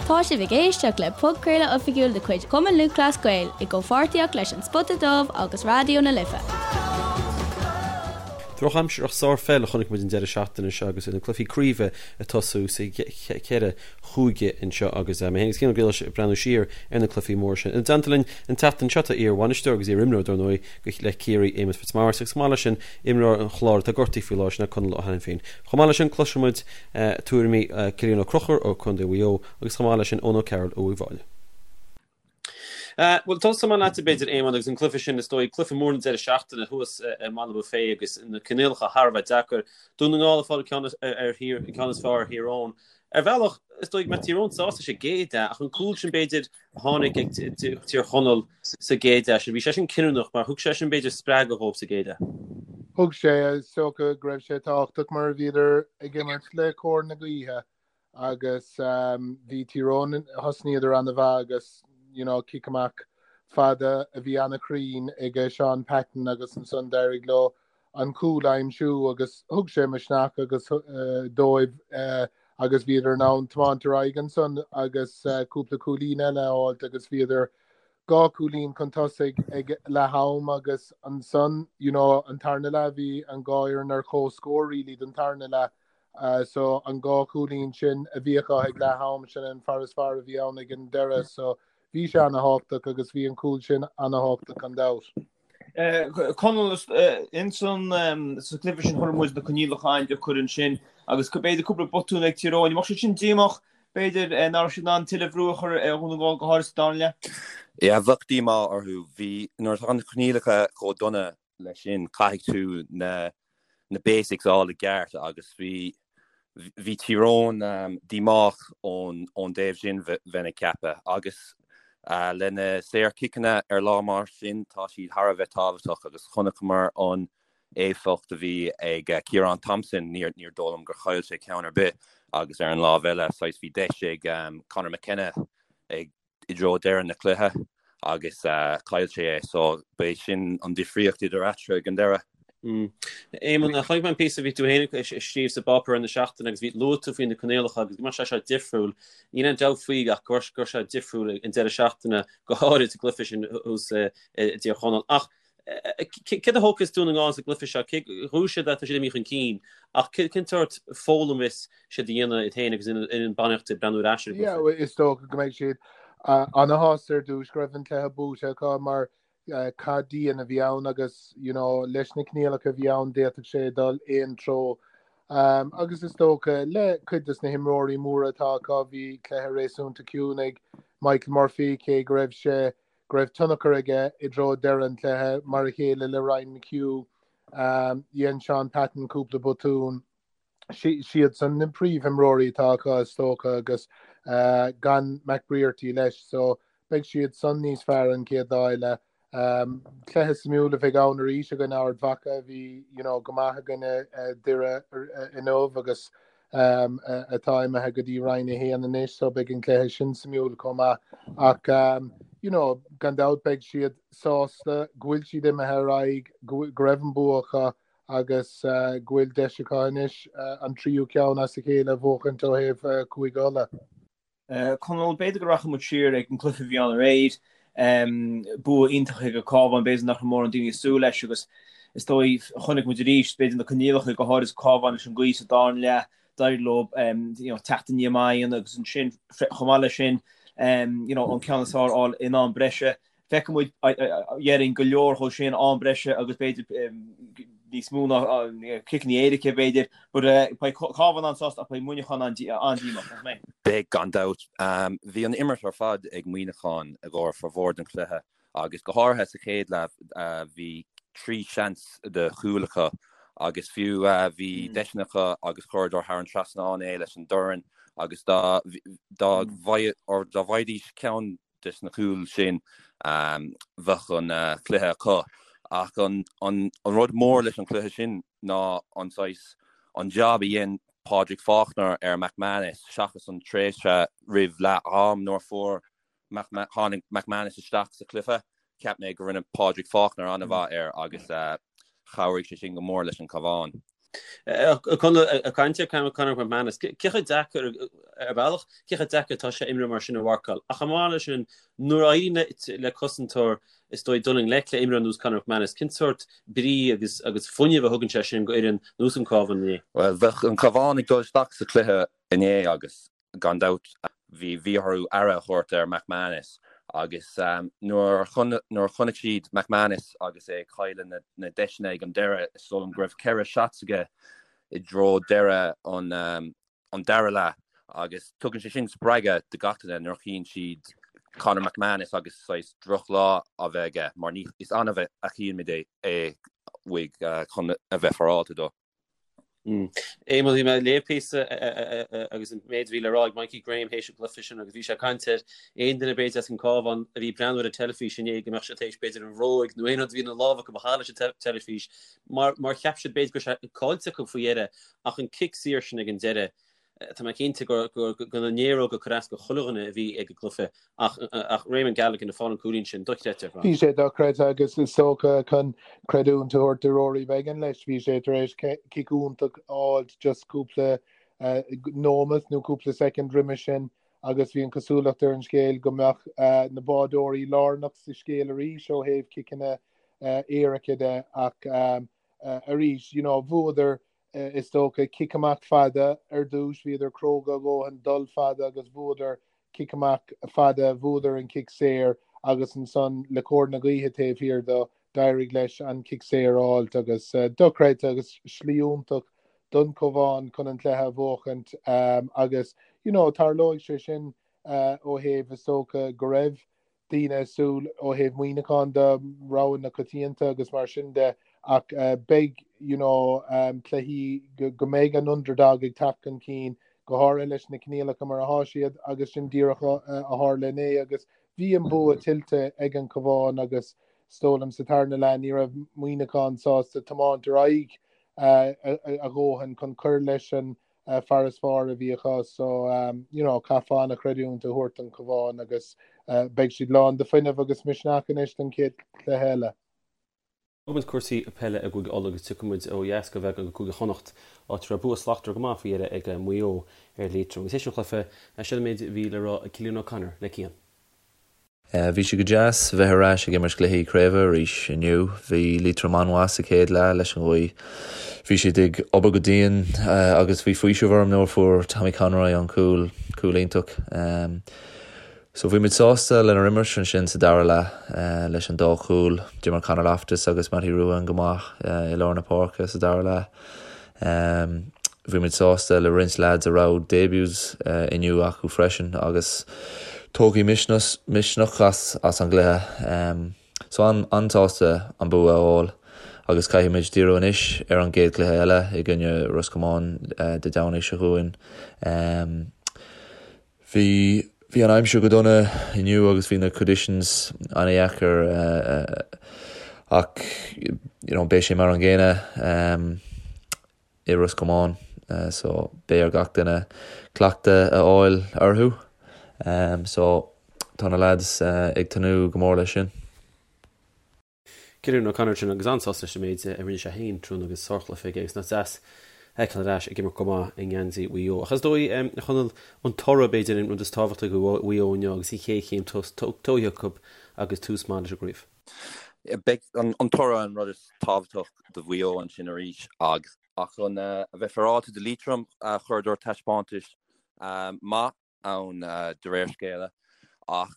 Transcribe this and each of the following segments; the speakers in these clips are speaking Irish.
Tá sibh ag éisteacht le podchraoladh oifigiúil de chuid Chumann Lúthchleas Gael i gcomhpháirtíocht leis An Spota Dubh agus Raidió na Life. Drochaimsir ach sárpheil a chonaic muid an deireadh seachtaine seo agus na cluichí craoibhe ag tosú sa cheithre chúige anseo agus mé féin agus Cian Ó Griallais ag breathnú siar ar na cluichí móra sin. Ina dteannta linn an tseachtain seo tá iar-bhainisteoir agus iar-imreoir dar ndóigh le Ciarraí, Éamonn Fitzmaurice agus chomh maith leis sin imreoir an Chláir atá gortaithe faoi láthair sin é Conall Ó hAiniféin. Chomh maith leis sin cloisfidh muid tuairimí Cillian Ó Conchúir ó Contae Mhaigh Eo agus chomh maith leis sin Eoin O'Carroll ó Uíbh Fhailí. Bhuel, tosóidh mé leatsa b'fhéidir, Éamonn, agus an cluiche sin, is dóigh, cluiche mór na deireadh seachtaine thuas i mBaile Bhuirne agus na coinníollacha thar a bheith deacair. Dún na nGall ag fáil an ceann ar Thír, an ceann is fearr ar Thír Eoghain. Ar bhealach, is dóigh go mbeadh Tír Eoghain sásta sa gcéad leath, ach an cúl sin, b'fhéidir, a tháinig ag Tír Chonaill sa gcéad leath sin, bhí sé sin cinniúnach mar thug sé sin, b'fhéidir, spreagadh dhóibh sa gcéad leath. Thug sé, is dócha go raibh sé tábhachtach mar bhíodar ag imirt le cóir na gaoithe agus bhí Tír Eoghain, thosnaíodar ana-mhaith agus, you know, cic amach fada a bhí ana-chruinn ag Seán Patton agus ansan d'éirigh leo an cúl a aimsiú agus thug sé misneach agus dóibh agus bhíodar in ann tiomáint ar aghaidh ansan agus cúpla cúilín eile a fháilt agus bhíodar dhá chúilín chun tosaigh ag leath am agus ansan you know an tarna leath bhí an dhá fhoireann ar comhscór really don tarna leath so an dhá chúilín sin a bhí acu ag leath am sin an farasbarr a bhí ann ag an deireadh so bhí sé ana-thábhachtach agus bhí an cúl sin ana-thábhachtach gan dabht. Conall, ins an sa chluiche sin chonaic muid na coinníollacha an-deacair ansin agus b'fhéidir cúpla botún ag Tír Eoghain. An mbeadh siad sin díomách, b'fhéidir, nach raibh siad in ann tuilleadh brú a chur ar Dhún na nGall go háirithe sa darna leath? Yeah, bheadh díomá orthu. Bhí, nuair atá na coinníollacha chomh dona leis sin, caithfidh tú na na basics a fháil i gceart agus bhí bhí Tír Eoghain díomách ón ón dtaobh sin bheinn ag ceapadh agus le na saorchiceanna ar lá mar sin tá siad thar a bheith tábhachtach agus chonaiceamar an éifeacht a bhí ag Ciarán Thompson, níor níor dóigh liom gur chaill sé ceann ar bith agus ar an lámh eile saghas bhí deis ag Conor McKenna ag i dtreo deireadh na cluiche agus chaill sé é so b'é sin an difríocht idir eatarthu ag an deireadh. Éamonn, chonaic mé an píosa a bhí tú féin ag scríobh sa bpáipéar ar na seachtaine agus bhí luaigh tú faoi na coinníollacha agus go mbeadh sé seo difriúil. Níl aon dabht faoi ach go raibh sé difriúil an deireadh seachtaine go háirid sa gcluiche sin thuas i dTír Chonaill. Ach Céard a thógfas Dún na nGall sa gcluiche seo? Cé bhuaigh siad tá siad imithe chun cinn, ach cén sórt foghlaim a bheas siad a dhéanamh iad féin agus an bainistíocht ag breathnú ar ais ar an gcluiche? Yeah, is dócha go mbeidh siad ana-shásta ar dtús go raibh an cluiche buaite acu mar cath dian a bhí ann agus you know, leis na coinníollacha a bhí ann d'fhéadfadh sé dul aon treo. Um, agus is dócha le cuid des na himreoirí móra atá acu bhí cluiche réasúnta ciúin ag Michael Murphy cé go raibh sé go raibh tionchar aige i dtreo deireadh an chluiche, mar a chéile le Ryan McHugh. Dhein Seán Patton cúpla botún. Siadsan na príomhimreoirí atá acu is dócha agus gan McBrearty leis so beidh siad san níos fearr an chéad lá eile. Cluiche suimiúil a bheidh ann arís i gcoinne Ard Mhacha a bhí you know, go maith i gcoinne Doire inniu agus atá imithe go dtí Roinn 1 anois so beidh an cluiche sin suimiúil chomh maith ach you know gan dabht beidh siad sásta go bhfuil siad imithe ar aghaidh, go raibh an bua acu agus go bhfuil deis acu anois an tríú ceann as a chéile a bhuachaint ó thaobh Cúige Uladh. Conall, b'fhéidir go rachaidh muid siar ag an gcluiche a bhí ann aréir. Bua iontach ag an Cabhán, b'fhéidir nach raibh mórán daoine ag súil leis agus is dóigh chonaic muid arís, b'fhéidir na coinníollacha, go háirid Cabhán leis an gaoth sa darna leath, d'éirigh leo you know, teacht aniar maith agus ansin chomh maith leis sin you know, an ceann is fearr a fháil in am breise. Feicfidh muid, déarfainn, go leor dhó sin, am breise agus b'fhéidir níos mó ná ciceanna éirice, b'fhéidir. But beidh Cabhán an-sásta ach beidh Muineachán an-díomách, nach mbeidh? Beidh, gan dabht. Bhí an imirt ar fad ag Muineachán i gcomhair formhór den chluiche agus go háirithe sa chéad leath bhí 3 seans de chúil acu agus fiú bhí deiseanna acu agus chuireadar thar an trasnán é leis an dorn agus dá dá bhfaighidís ceann des na cúil sin, bheadh an cluiche acu. Ach an rud mór leis an chluiche sin ná an saghas, an jab a dhein Pádraig Faulkner ar McManus seachas an tréimhse roimh leath am nuair a fuair tháinig McManus isteach sa chluiche. Cheap mé go rinne Pádraig Faulkner an-mhaith air agus chabhraigh sé sin go mór leis an Cabhán. Conall, ag caint ar Conor McManus, cé chomh deacair, ar bhealach, cé chomh deacair atá sé imreoir mar sin a mharcáil? Ach chomh maith leis sin, nuair a éiríonn le cosantóir, is dóigh, dul i ngleic le imreoir ar nós Conor McManus, cén sórt brí agus agus fuinneamh a thugann sé sin go fhoireann nós an Cabhán inné? Bhuel, bheadh an Cabhán ag dul isteach sa chluiche inné agus Gan dabht, bhí bhí orthu aire a thabhairt ar McManus agus nuair a chonaic siad McManus agus é ag cailleadh na deiseanna ag an deireadh, is dóigh liom go raibh 4 shots aige i dtreo deireadh an dara leath agus tugann sé sin spreagadh do gach duine nuair a chíonn siad Conor McManus agus saghas drochlá á bheith aige mar ní is annamh a chíonn muid é uaidh chun a bheith féaráilte dó. Éamonn, bhí mé ag léamh píosa agus an méid a bhí le rá ag Mikey Graham théis an chluiche sin agus bhí sé ag caint ar aon duine b'fhéidir as an Cabhán a bhí ag breathnú ar an teilifís inné go mbeadh sé théis b'fhéidir an bhróig nó aon rud a bhí ina lámh acu a chaitheamh leis an teilifís mar mar cheap siad b'fhéidir go raibh sé caillte acu faoi dheireadh ach an cic saor sin ag an deireadh Tá mé cinnte gur na néaróga a chuir as do chuile dhuine a bhí ag an gcluiche ach ach Raymond Galligan ag fáil an cúilín sin, dochreidte ar fad. Bhí sé dochreidte agus is dócha chun creidiúint a thabhairt do Rory Beggan leis, bhí sé tar éis cic iontach a fháilt just cúpla nóimeat nó cúpla soicind roimhe sin agus bhí an chosúlacht ar an scéal go mbeadh na bádóirí lárnach sa scéal arís ó thaobh ciceanna éirice de ach arís, you know, bhuadar Is dócha, cic amach fada ar dtús, bhíodar cróga a dhóthain dul fada agus bhuadar cic amach fada, bhuadar an cic saor agus ansan le cóir na gaoithe taobh thiar do, d'éirigh leis an cic saor a fháilt agus dochreidte agus slí iontach don Chabhán chun an cluiche a bhuachaint agus you know tarlóidh sé sin ó thaobh is dócha go raibh daoine ag súil ó thaobh Muineacháin de, rogha na coitianta agus mar sin de ach beidh you know cluichí go mbeidh an underdog ag teacht chun cinn, go háirithe leis na coinníollacha mar atá siad agus sin díreach a tharla inné agus bhí an bua tuillte ag an Chabhán agus is dóigh liom sa tarna leath ní raibh Muineachán sásta tiomáint ar aghaidh a dhóthain chun cur leis an farasbarr a bhí acu so you know caithfear an-chreidiúint a thabhairt don Chabhán agus beidh siad lán de fuinneamh agus misneach anois don chéad chluiche eile. Fágfaidh muid cúrsaí peile i gCúige Uladh agus tiocfaidh muid ó dheas go bheagán go Cúige Chonnacht, áit a raibh bua slachtmhar go maith faoi dheireadh ag Maigh Eo ar Liatroim. Agus théis an chluiche, seo an méid a bhí le rá ag Cillian O'Connor le Cian. Bhí sé go deas bheith ar ais ag imirt cluichí craoibhe arís inniu. Bhí Liatroim an-mhaith sa chéad leath leis an ghaoth. Bhí siad ag obair go dian agus bhí faoiseamh orm nuair a fuair Tommy Conroy an cúl, cúl iontach. So bhí muid sásta lenár imirt ansin sa dara leath leis an dá chúl. D'imir Conor Loftus agus Mattie Ruane go maith i lár na páirce sa dara leath. Bhí muid sásta le roinnt leaids a raibh debuts inniu acu freisin agus tógfaidh misneach as an gcluiche. So an-sásta an bua a fháil agus caithfidh muid díriú anois ar an gcéad chluiche eile i gcoinne Ros Comáin Dé Domhnaigh seo chugainn. Bhí bhí an aimsir go dona inniu agus bhí na conditions an-dheacair ach you know beidh sé mar an gcéanna i Ros Comáin so beidh ar gach duine cleachtadh a fháil orthu so tá na lads ag tnúth go mór leis sin. Cillian O'Connor sin agus an-sásta leis an méid a rinne sé féin tráthnóna agus sárchluiche aige agus nach deas a fheiceáil ar ais ag imirt go maith i ngeansaí Mhaigh Eo. Ach is dóigh, a Chonaill, an toradh b'fhéidir an rud is tábhachtaí do Mhaigh Eo inniu agus an chéad chéim tógtha acu agus tús maith leis an gcraobh. Beidh an toradh an rud is tábhachtach do Mhaigh Eo ansin arís ach chun a bheith féaráilte do Liatroim chuireadar taispeántas maith ann de réir scéala ach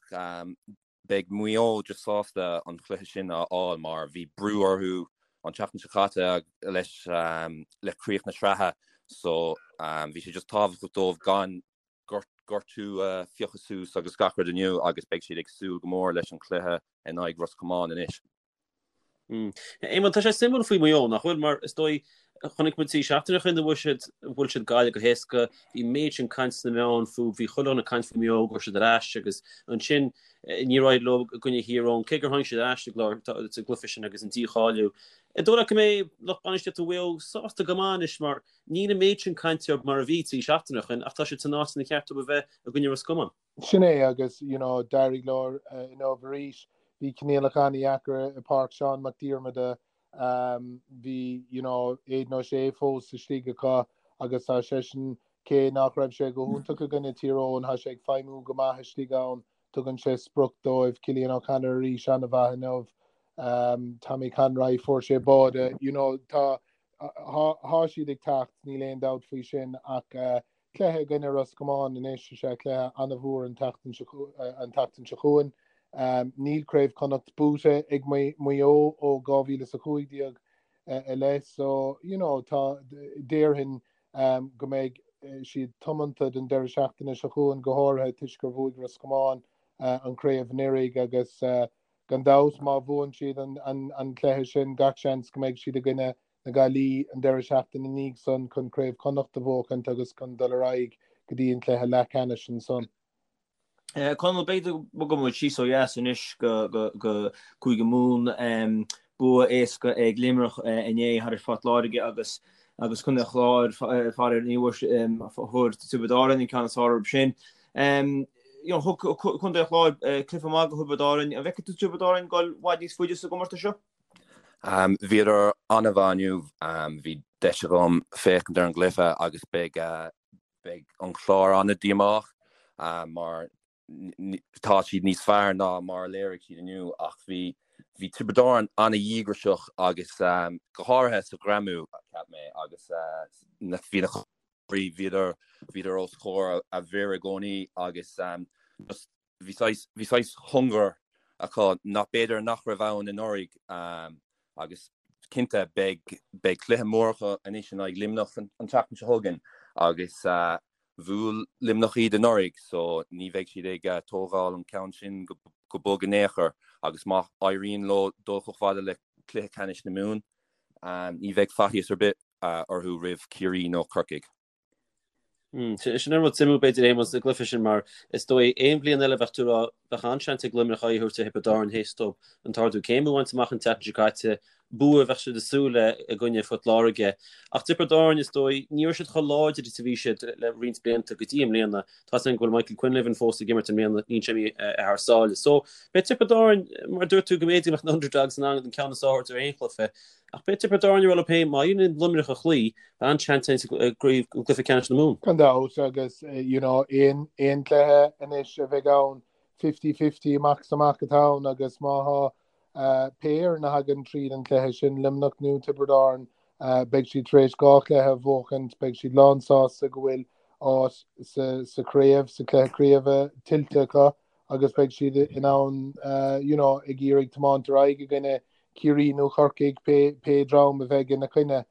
beidh Maigh Eo just sásta an chluiche sin a fháil mar bhí brú orthu an tseachtain seo caite leis le críoch na sraithe so bhí sé just tábhachtach dóibh gan gortú a phiocadh suas agus gach rud inniu agus beidh siad ag súil go mór leis an chluiche in aghaidh Ros Comáin anois. Éamonn, tá sé suimiúil faoi Mhaigh Eo, nach bhfuil? Mar is dóigh, chonaic muid trí seachtaine ó shin a bhuaigh siad, bhuail siad Gaillimh go héasca, bhí an méid sin caint sna meáin fúthu, bhí chuile dhuine ag caint faoi Mhaigh Eo, go raibh siad ar ais agus ansin níor éirigh leo i gcoinne Thír Eoghain, cé gur tháinig siad ar ais sa gcluiche sin agus an dícháiliú. An dóigh leat go mbeidh lucht bainistíochta Mhaigh Eo sásta go maith anois mar níl an méid sin cainte orthu mar a bhí trí seachtaine ó shin ach tá siad san áit inar cheart dóibh a bheith i gcoinne Ros Comáin. Sin é agus you know d'éirigh leo inniu arís. Bhí coinníollacha an-dheacair i Páirc Seán Mac Diarmada. Bhí you know Aidan O'Shea fós istigh acu agus tá seisean, cé nach raibh sé go hiontach i gcoinne Tír Eoghain, tá sé ag feidhmiú go maith istigh ann, tugann sé sprioc dóibh. Cillian O'Connor arís an-mhaith inniu. Tommy Conroy fuair sé báide, you know tá tá siad ag teacht, níl aon dabht faoi sin ach Cluiche i gcoinne Ros Comáin anois is ea cluiche an-mhór an tseachtain seo chugainn. Níl Craobh Chonnacht buaite ag Maigh Eo ó 2015 i leith so you know tá déarfainn go mbeidh siad tiomanta don deireadh seachtaine seo chugainn go háirithe toisc gur bhuaigh Ros Comáin an chraobh anuraidh agus gan dabht má bhuann siad an cluiche sin gach seans go mbeidh siad i gcoinne na Gaillimhe an deireadh seachtaine ina dhiaidh san chun Craobh Chonnacht a bhuachaint agus chun dul ar aghaidh go dtí an cluiche leathcheannais ansan. Conall, b'fhéidir go mbogfaidh muid síos ó dheas anois go Cúige Mumhan. Bua éasca ag Luimneach inné thar Phort Láirge agus agus Contae an Chláir, faraor ní bhfuair Tiobraid Árann an ceann is fearr orthu sin. Thug Contae an Chláir cluiche maith do Thiobraid Árann. An bhfeiceann tú Tiobraid Árann ag dul i bhfad níos faide sa gcomórtas seo? Bhíodar an-mhaith inniu. Bhí deis agam féachaint ar an gcluiche agus beidh beidh an Clár an-díomách mar tá siad níos fearr ná mar a léirigh siad inniu ach bhí bhí Tiobraid Árann an-dhíograiseach agus go háirithe sa ghreamú, cheap mé, agus bhí na bhíodar bhíodar os comhair a bhfir i gcónaí agus just Bhí saghas, bhí saghas hunger acu nach b'fhéidir nach raibh ann anuraidh agus cinnte beidh, beidh cluiche mór acu anois in aghaidh Luimneach an tseachtain seo chugainn agus bhuail Luimneach iad anuraidh so ní bheidh siad ag tógáil an ceann sin go bog in aon chor agus má éiríonn leo dul chomh fada le cluiche ceannais na Mumhan ní bheidh faitíos ar bith orthu roimh Ciarraí nó Corcaigh. Sin an rud suimiúil b'fhéidir Éamonn sa gcluiche sin mar is dóigh aon bhliain eile bheadh tú ag rá bheadh an-seans ag Luimneach aghaidh a thabhairt ar Thiobraid Árann théis dóibh an t-ardú céime a bhaint amach an tseachtain seo caite, bua a bheadh siad ag súil le i gcoinne Phort Láirge. Ach Tiobraid Árann is dóigh ní raibh siad chomh láidir is a bhí siad le roinnt blianta go dtí i mbliana. Tá a fhios againn go bhfuil Michael Quinlivan fós ag imirt i mbliana, níl sé imithe thar sáile. So beidh Tiobraid Árann, mar a dúirt tú go mb'fhéidir go mbeadh na underdogs in ann an ceann is fearr a thabhairt ar aon chluiche. Ach beidh Tiobraid Árann ag rá leo féin má éiríonn le Luimneach a chloí, An-seans i gcluiche ceannais na Mumhan. Gan dabht agus you know aon aon cluiche anois a bheidh ann 50-50 amach is amach atá ann agus má thá pé fhoireann a thagann tríd an cluiche sin, Luimneach nó Tiobraid Árann, beidh siad tar éis 2 chluiche a bhuachaint, beidh siad lán sásta go bhfuil áit sa sa chraobh, sa chluiche craoibhe tuillte acu agus beidh siad in ann you know ag iarraidh tiomáint ar aghaidh i gcoinne Ciarraí nó Corcaigh, pé dream a bheidh ina coinne.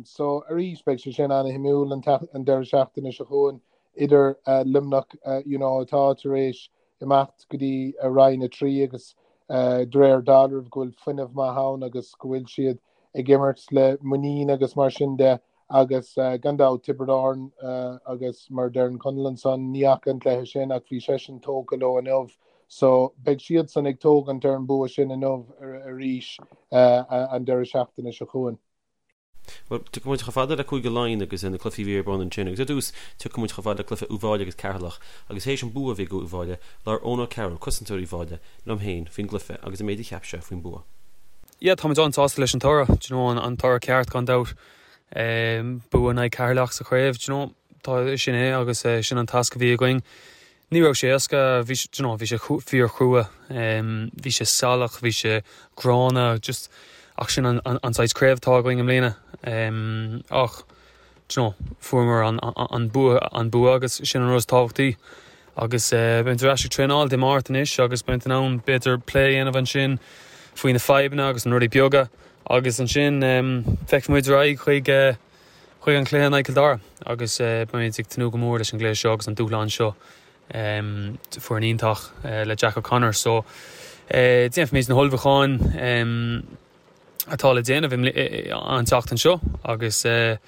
So arís beidh sé sin ana-shuimiúil an deireadh seachtaine seo chugainn idir Luimneach you know atá tar éis imeacht go dtí Roinn 3 agus de réir dealraimh go bhfuil fuinneamh maith ann agus go bhfuil siad ag imirt le muinín agus mar sin de. Agus gan dabht, Tiobraid Árann agus mar a deireann Conall ansan, ní fhaca an cluiche sin ach bhí seisean tógtha leo inniu so beidh siadsan ag tógaint ar an bua sin inniu arís an deireadh seachtaine seo chugainn. Bhuel, tiocfaidh muid chomh fada le Cúige Laighean agus na cluichí a bhí ar bun ansin agus ar dtús tiocfaidh muid chomh fada le cluiche Uíbh Fhailí agus Ceatharlach agus théis an bua a bhí ag Uíbh Fhailí, labhair Eoin O'Carroll, cosantóir Uíbh Fhailí, liom féin faoin gcluiche agus an méid a cheap sé faoin bua. Yeah, táimid an-sásta leis an toradh, do you know, an toradh ceart gan dabht. Bua in aghaidh Ceatharlach sa chraobh, do you know, tá, sin é agus sin an tasc a bhí againn. Ní raibh sé éasca, bhí sé, do you know, bhí sé fíorchrua, bhí sé salach, bhí sé gránna, just, ach sin an, an, an saghas craobh atá againn i mbliana. Ach, do you know, fuaireamar an, an bua, an bua agus sin an rud is tábhachtaí. Agus beimid ar ais ag traenáil Dé Máirt anois agus beimid in ann b'fhéidir plé a dhéanamh ansin faoi na fadhbanna agus na rudaí beaga agus ansin feicfidh muid ar aghaidh chuig chuig an chluiche in aghaidh Cill Dara agus beimid ag tnúth go mór leis an gcluiche seo agus an dúshlán seo. Foireann iontach le Jack O'Connor so déanfaimid na hullmhúcháin. atá le déanamh an tseachtain seo agus ag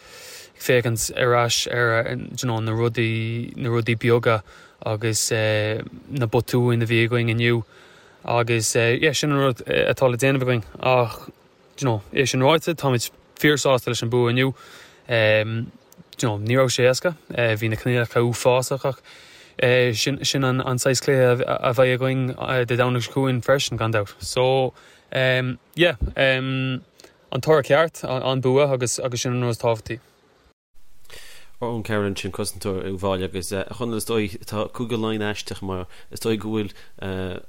féachaint ar ais ar na rudaí, na rudaí beaga agus na botúin a bhí againn inniu agus yeah sin an rud atá le déanamh againn ach you know é sin ráite táimid fíorshásta leis an bua inniu. You know ní raibh sé éasca, bhí na coinníollacha uafásach ach sin sin an saghas cluiche a bheidh againn Dé Domhnaigh seo chugainn freisin gan dabht. So. Yeah. An toradh ceart, an bua agus agus sin an rud is tábhachtaí. Eoin Carroll ansin, cosantóir Uíbh Fhailí agus a Chonaill is dóigh tá Cúige Laighean aisteach mar is dóigh go bhfuil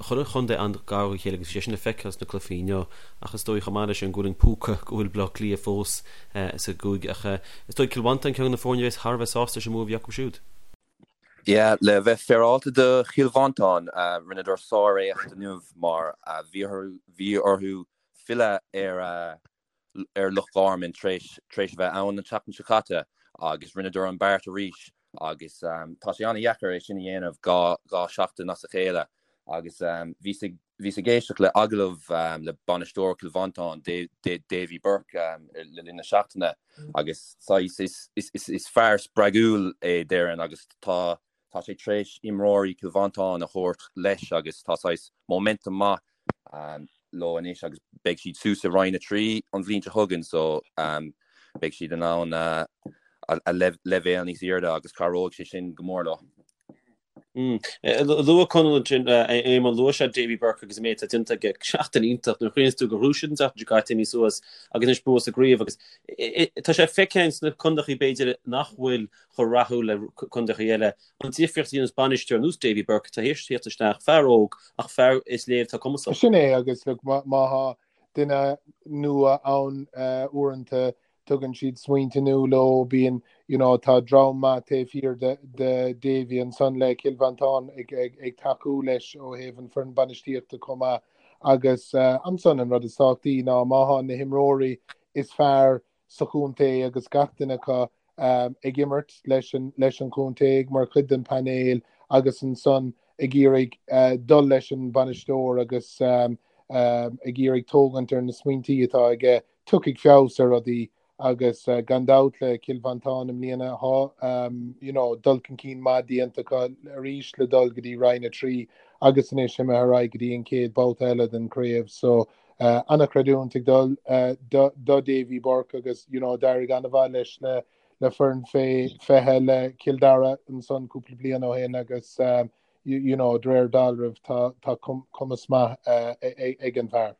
chuile chontae an-ghar dá chéile agus bhí sé sin le feiceáil sna cluichí inniu ach is dóigh chomh maith leis sin go bhfuil an púca go bhfuil Baile Átha Cliath fós sa gcúige ach is dóigh Cill Mhantáin ceann de na foirne a bheas thar a bheith sásta leis an mbua a bhí acu siúd. Yeah, le bheith féaráilte do Chill Mhantáin, rinneadar sár-éacht inniu mar bhí orthu filleadh ar ar Loch Garman tar éis tar éis a bheith ann an tseachtain seo caite agus rinneadar an beart arís agus tá sé an-dheacair é sin a dhéanamh 2 seachtain as a chéile agus bhíos ag bhíos ag éisteacht le agallamh le bainisteoir Chill Mhantáin Davy Burke le linn na seachtaine agus saghas is is is fear spreagúil é déarfainn agus tá Tá sé tar éis imreoirí Chill Mhantáin a thabhairt leis agus tá saghas momentum maith leo anois agus beidh siad suas i Roinn 3 an bhliain seo chugainn so beidh siad in ann a leibhéal níos airde agus cabhróidh sé sin go mór leo. Luaigh Conall ansin, Éamonn, luaigh sé Davy Burke agus an méid atá déanta aige. Seachtain iontach nuair a chuimhníonns tú gur ghnóthaigh siad an tseachtain seo caite imithe suas agus anois bua sa gcraobh agus tá sé feicthe sna contaetha b'fhéidir nach bhfuil chomh rathúil le contaetha eile. An difríocht a dhéanas bainisteoir ar nós Davy Burke atá théis tíocht isteach, fear óg ach fear is léir atá cumasach. Sin é agus look má tá duine nua ann uaireanta tugann siad smaointe nua leo, bíonn you know tá dream maith taobh thiar de de Davy ansan le Cill Mhantáin ag ag ag tacú leis ó thaobh an foireann bainistíochta chomh maith agus ansan an rud is tábhachtaí ná má tá na himreoirí is fearr sa chontae agus gach duine acu ag imirt leis an leis an chontae mar chuid den painéal agus ansan ag iarraidh dul leis an bainisteoir agus ag iarraidh tógaint ar na smaointí atá aige. Tiocfaidh feabhas ar rudaí agus gan dabht le Cill Mhantáin i mbliana tá you know dul chun cinn maith déanta acu arís le dul go dtí Roinn 3 agus anois imithe ar aghaidh go dtí an chéad babhta eile den chraobh so An-chreidiúint ag dul do Davy Burke agus you know d'éirigh an-mhaith leis le le foireann fé 20 le Cill Dara ansan cúpla bliain ó shin agus you know de réir dealraimh tá tá cumas maith ag an bhfear.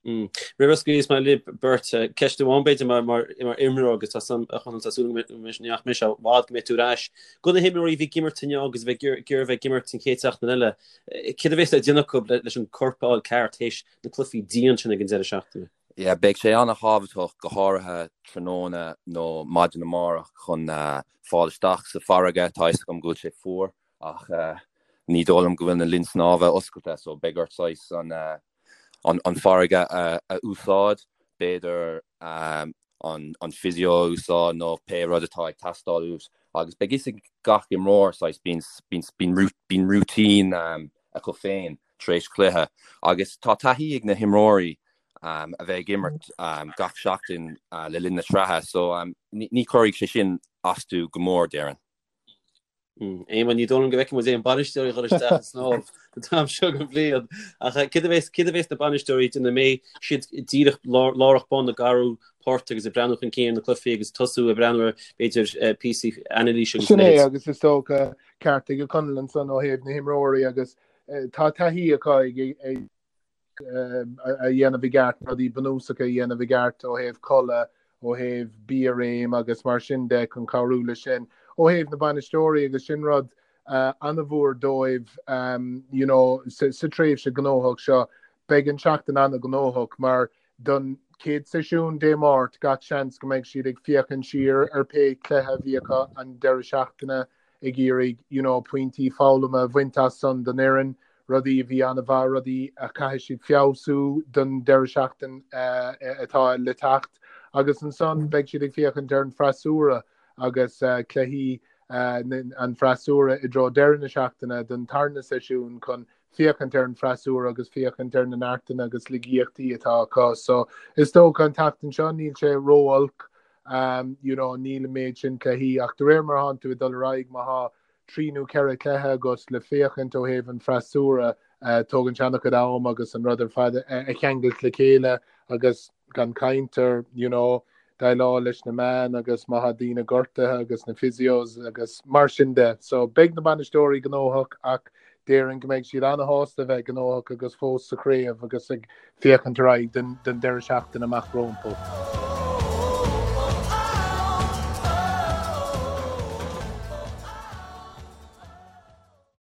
Roimh a scaoilfeas mé libh beirt, ceist amháin b'fhéidir mar mar imreoir agus tá san a Chonaill tá súil agam go mbeidh nach mbeidh sé i bhfad go mbeidh tú ar ais. Do na himreoirí a bhí ag imirt inniu agus a bheidh ag iarraidh bheith ag imirt an chéad seachtain eile, Céard a bheas le déanamh acu leis an corp a fháil ceart théis na cluichí dian sin ag an deireadh seachtaine? Yeah, beidh sé an-thábhachtach, go háirithe tráthnóna nó maidin amárach chun fáil isteach sa bhfarraige. Tá fhios agam go bhfuil sé fuar ach ní dóigh liom go bhfuil na linn snámha oscailte so beidh ort saghas an farraige a úsáid. B'fhéidir an physio a úsáid nó pé rud atá ag teastáil uait agus beidh fhios ag gach imreoir saghas bíonn routine acu féin tar éis cluiche agus tá taithí ag na himreoirí a bheith ag imirt gach seachtain le linn na sraithe so ní chuirfidh sé sin astu go mór déarfainn. Éamonn, ní dóigh liom go bhfeicfidh muid aon bainisteoirí ag dul isteach ag snámh an t-am seo den bhliain. Ach céard a bheas, céard a bheas na bainisteoirí ag déanamh? An mbeidh siad díreach lárach bun ag athrú poirt agus ag breathnú chun cinn ar na cluichí agus tosú ag breathnú ar, b'fhéidir, píosaí anailíse agus a Sin é, leithéid. agus is dócha ceart ag Conall ansan ó thaobh na himreoirí agus tá taithí acu ag, ag, a dhéanamh i gceart, rudaí bunúsacha a dhéanamh i gceart ó thaobh codladh, ó thaobh bia réim agus mar sin de chun cabhrú leis sin. Ó thaobh na bainisteoirí agus sin rud an-mhór dóibh you know sa tréimhse gnóthach seo, beidh an tseachtain an-ghnóthach mar don chéad seisiún Dé Máirt gach seans go mbeidh siad ag féachaint siar ar pé cluiche a bhí acu an deireadh seachtaine ag iarraidh you know pointí foghlama a bhaint as san don fhoireann, rudaí a bhí an-mhaith, rudaí a chaithfidh siad feabhsú don deireadh seachtain atá le teacht agus ansan beidh siad ag féachaint ar an freasúra agus cluichí an freasúra i dtreo deireadh na seachtaine don tarna seisiún chun féachaint ar an freasúra agus féachaint ar na neartanna agus laigeachtaí atá acu. So is dócha an tseachtain seo níl sé ró-olc you know níl an méid sin cluichí ach de réir mar atánn tú ag dul ar aghaidh má thá 3 nó 4 cluiche agat le féachaint ó thaobh an freasúra tógann sé an-chuid am agus an rud ar fad a cheangailt le chéile agus gan caint ar you know déileáil leis na meáin agus má thá daoine gortaithe agus na physios agus mar sin de. So beidh na bainisteoirí gnóthach ach. Déarfainn go mbeidh siad ana-shásta a bheith gnóthach agus fós sa chraobh agus ag féachaint ar aghaidh don deireadh seachtaine amach rompu.